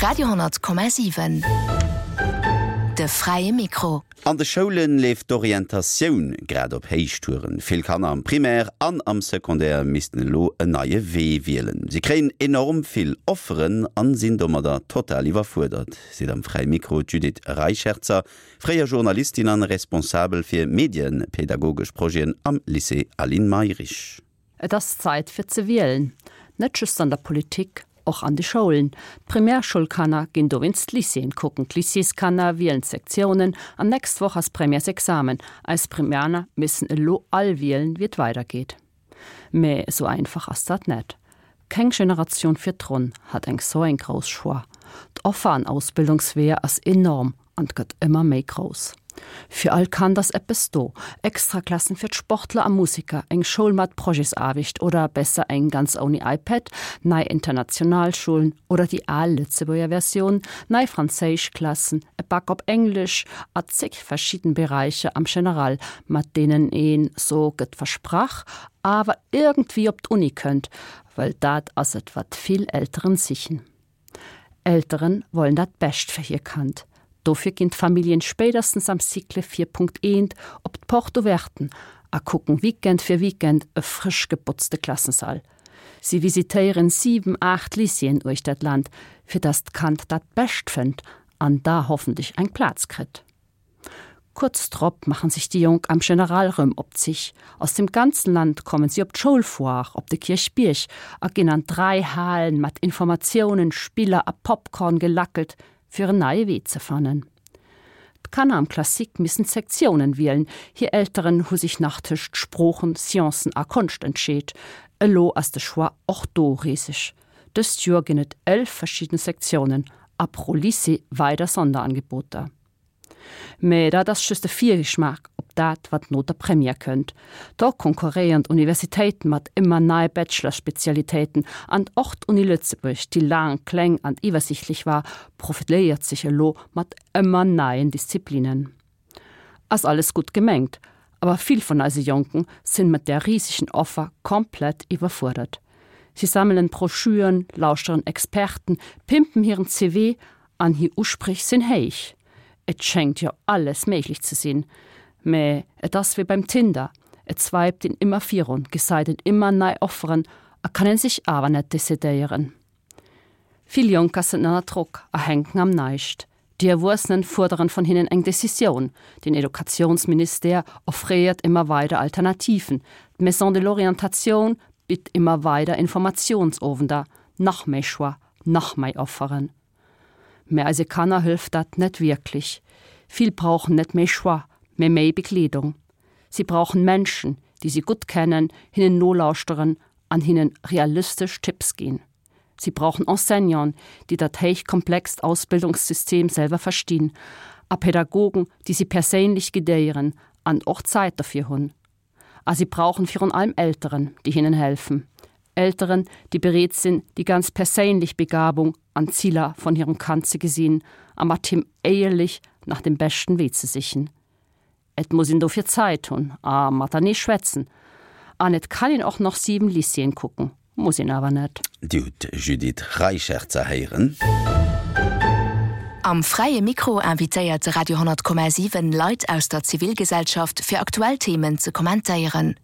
Radio,7 De fräie Mikro. An de Schoule leeft d'Orientatioun grad op Héichtouren. Vill Kanner am Primaire an am Secondaire missten elo en neie Wee wielen. Si kréien enorm vill Offeren an sinn domadder total iwwerfuerdert, seet am Fräie Mikro d'Judith Reicherzer, fréier Journalistin an Responsabel fir medienpädagogesch Projeten am Lycée Aline Mayrisch. Et ass Zait fir ze wielen, net just an der Politik, och an de Schoulen. D'Primärschoulkanner ginn dowéinst d'Lycéeën kucken, d'Lycéeskanner wielen d'Sektiounen an nächst Woch ass Premièresexamen. Eis Primäner missen elo all wielen, wéi et weidergeet. Mä esou einfach ass dat net. Keng Generatioun virdrun hat eng sou eng grouss Choix. D'Offer an Ausbildungsweeër ass enorm an gëtt ëmmer méi grouss. Fir all Kand ass eppes do, Extraklassen fir d'Sportler a Museker, eng Schoul mat Projetsaarbecht oder besser eng ganz ouni iPad, nei international Schoulen oder déi al Lëtzebuerger Versioun, nei Franséischklassen, e Bac op Englesch a zeg verschidden Beräicher am General, mat deenen een, so gëtt versprach, awer iergendwéi op d'Uni kënnt, well dat ass et wat vill Elteren sichen. Elteren wollen dat Bescht fir hir Kand. Dofir ginn d'Familljen spéiderstens am Cycle 4.1 op d'Porte ouverten a kucken Weekend fir Weekend e frësch gebotzte Klassensall. Si visitéieren 7, 8 Lycéeën uechter d'Land, fir dass d'Kand dat Bescht fënnt an da hoffentlech eng Plaz kritt. Kuerz drop machen sech déi Jonk am General rëm op d'Sich. Aus dem ganzen Land kommen si op d'Schoulfoire op de Kierchbierg a ginn an 3 Halen mat Informatiounen, Spiller a Popcorn gelackelt, fir en neie Wee ze fannen. D'Kanner am Classique missen d'Sektiounen wielen, hir Elteren hu sech nach tëscht Sproochen, Sciencen a Konscht entscheet. Elo ass de Choix och do riseg. Dëst Joer ginn et 11 verschidden Sektiounen a pro Lycée weider Sonderangeboter. Mä dat ass just e Virgeschmaach op dat, wat no der Première kënnt. Do konkurréieren d'Universitéiten mat ëmmer neie Bachelor-Spezialitéiten an och d'Uni Lëtzebuerg, déi laang kleng an iwwersichtlech war, profiléiert sech elo mat ëmmer neien Disziplinen. Ass alles gutt gemengt, awer vill vun eise Jonken sinn mat där risegen Offer komplett iwwerfuerdert. Si sammelen Broschüren, lauschteren Experten, pimpen hiren CV An hir Usprich sinn héich. Et schéngt jo alles méiglech ze sinn. Mä et ass wéi beim Tinder, et swiped een ëmmer virun, gesait een ëmmer nei Offeren a kann een sech awer net decidéieren. Vill Jonker sinn ënner Drock a hänken am Näischt. Déi Erwuessenen fuerderen vun hinnen eng Decisioun. Den Educatiounsministère offréiert ëmmer weider Alternativen, d'Maison de l'orientation bitt ëmmer weider Informatiounsowender, nach méi Choix, nach méi Offeren. Mä eise Kanner hëlft dat net wierklech. Vill brauchen net méi Choix, mä méi Begleedung. Si brauchen Menschen, déi si gutt kennen, hinnen nolauschteren an hinnen realistesch Tipps ginn. Si brauchen Enseignanten, déi dat héichkomplext Ausbildungssystem selwer verstinn, a Pädagogen, déi si perséinlech guidéieren an och Zäit dofir hunn. A si brauchen virun allem Elteren, déi hinnen helfen. Elteren, déi bereet sinn, déi ganz perséinlech Begabung an Ziler von hirem Kand ze gesinn a mat him éierlech nach dem beschten Wee ze sichen. Et muss een dofir Zäit hunn a matenee schwätzen. An et kann een och nach 7 Lycéeën kucken, muss een awer net. Dir hutt d'Judith Reicherzer héieren. Am Fräie Mikro invitéiert de Radio 10,7 Leit aus der Zivilgesellschaft fir aktuell Themen ze kommentéieren.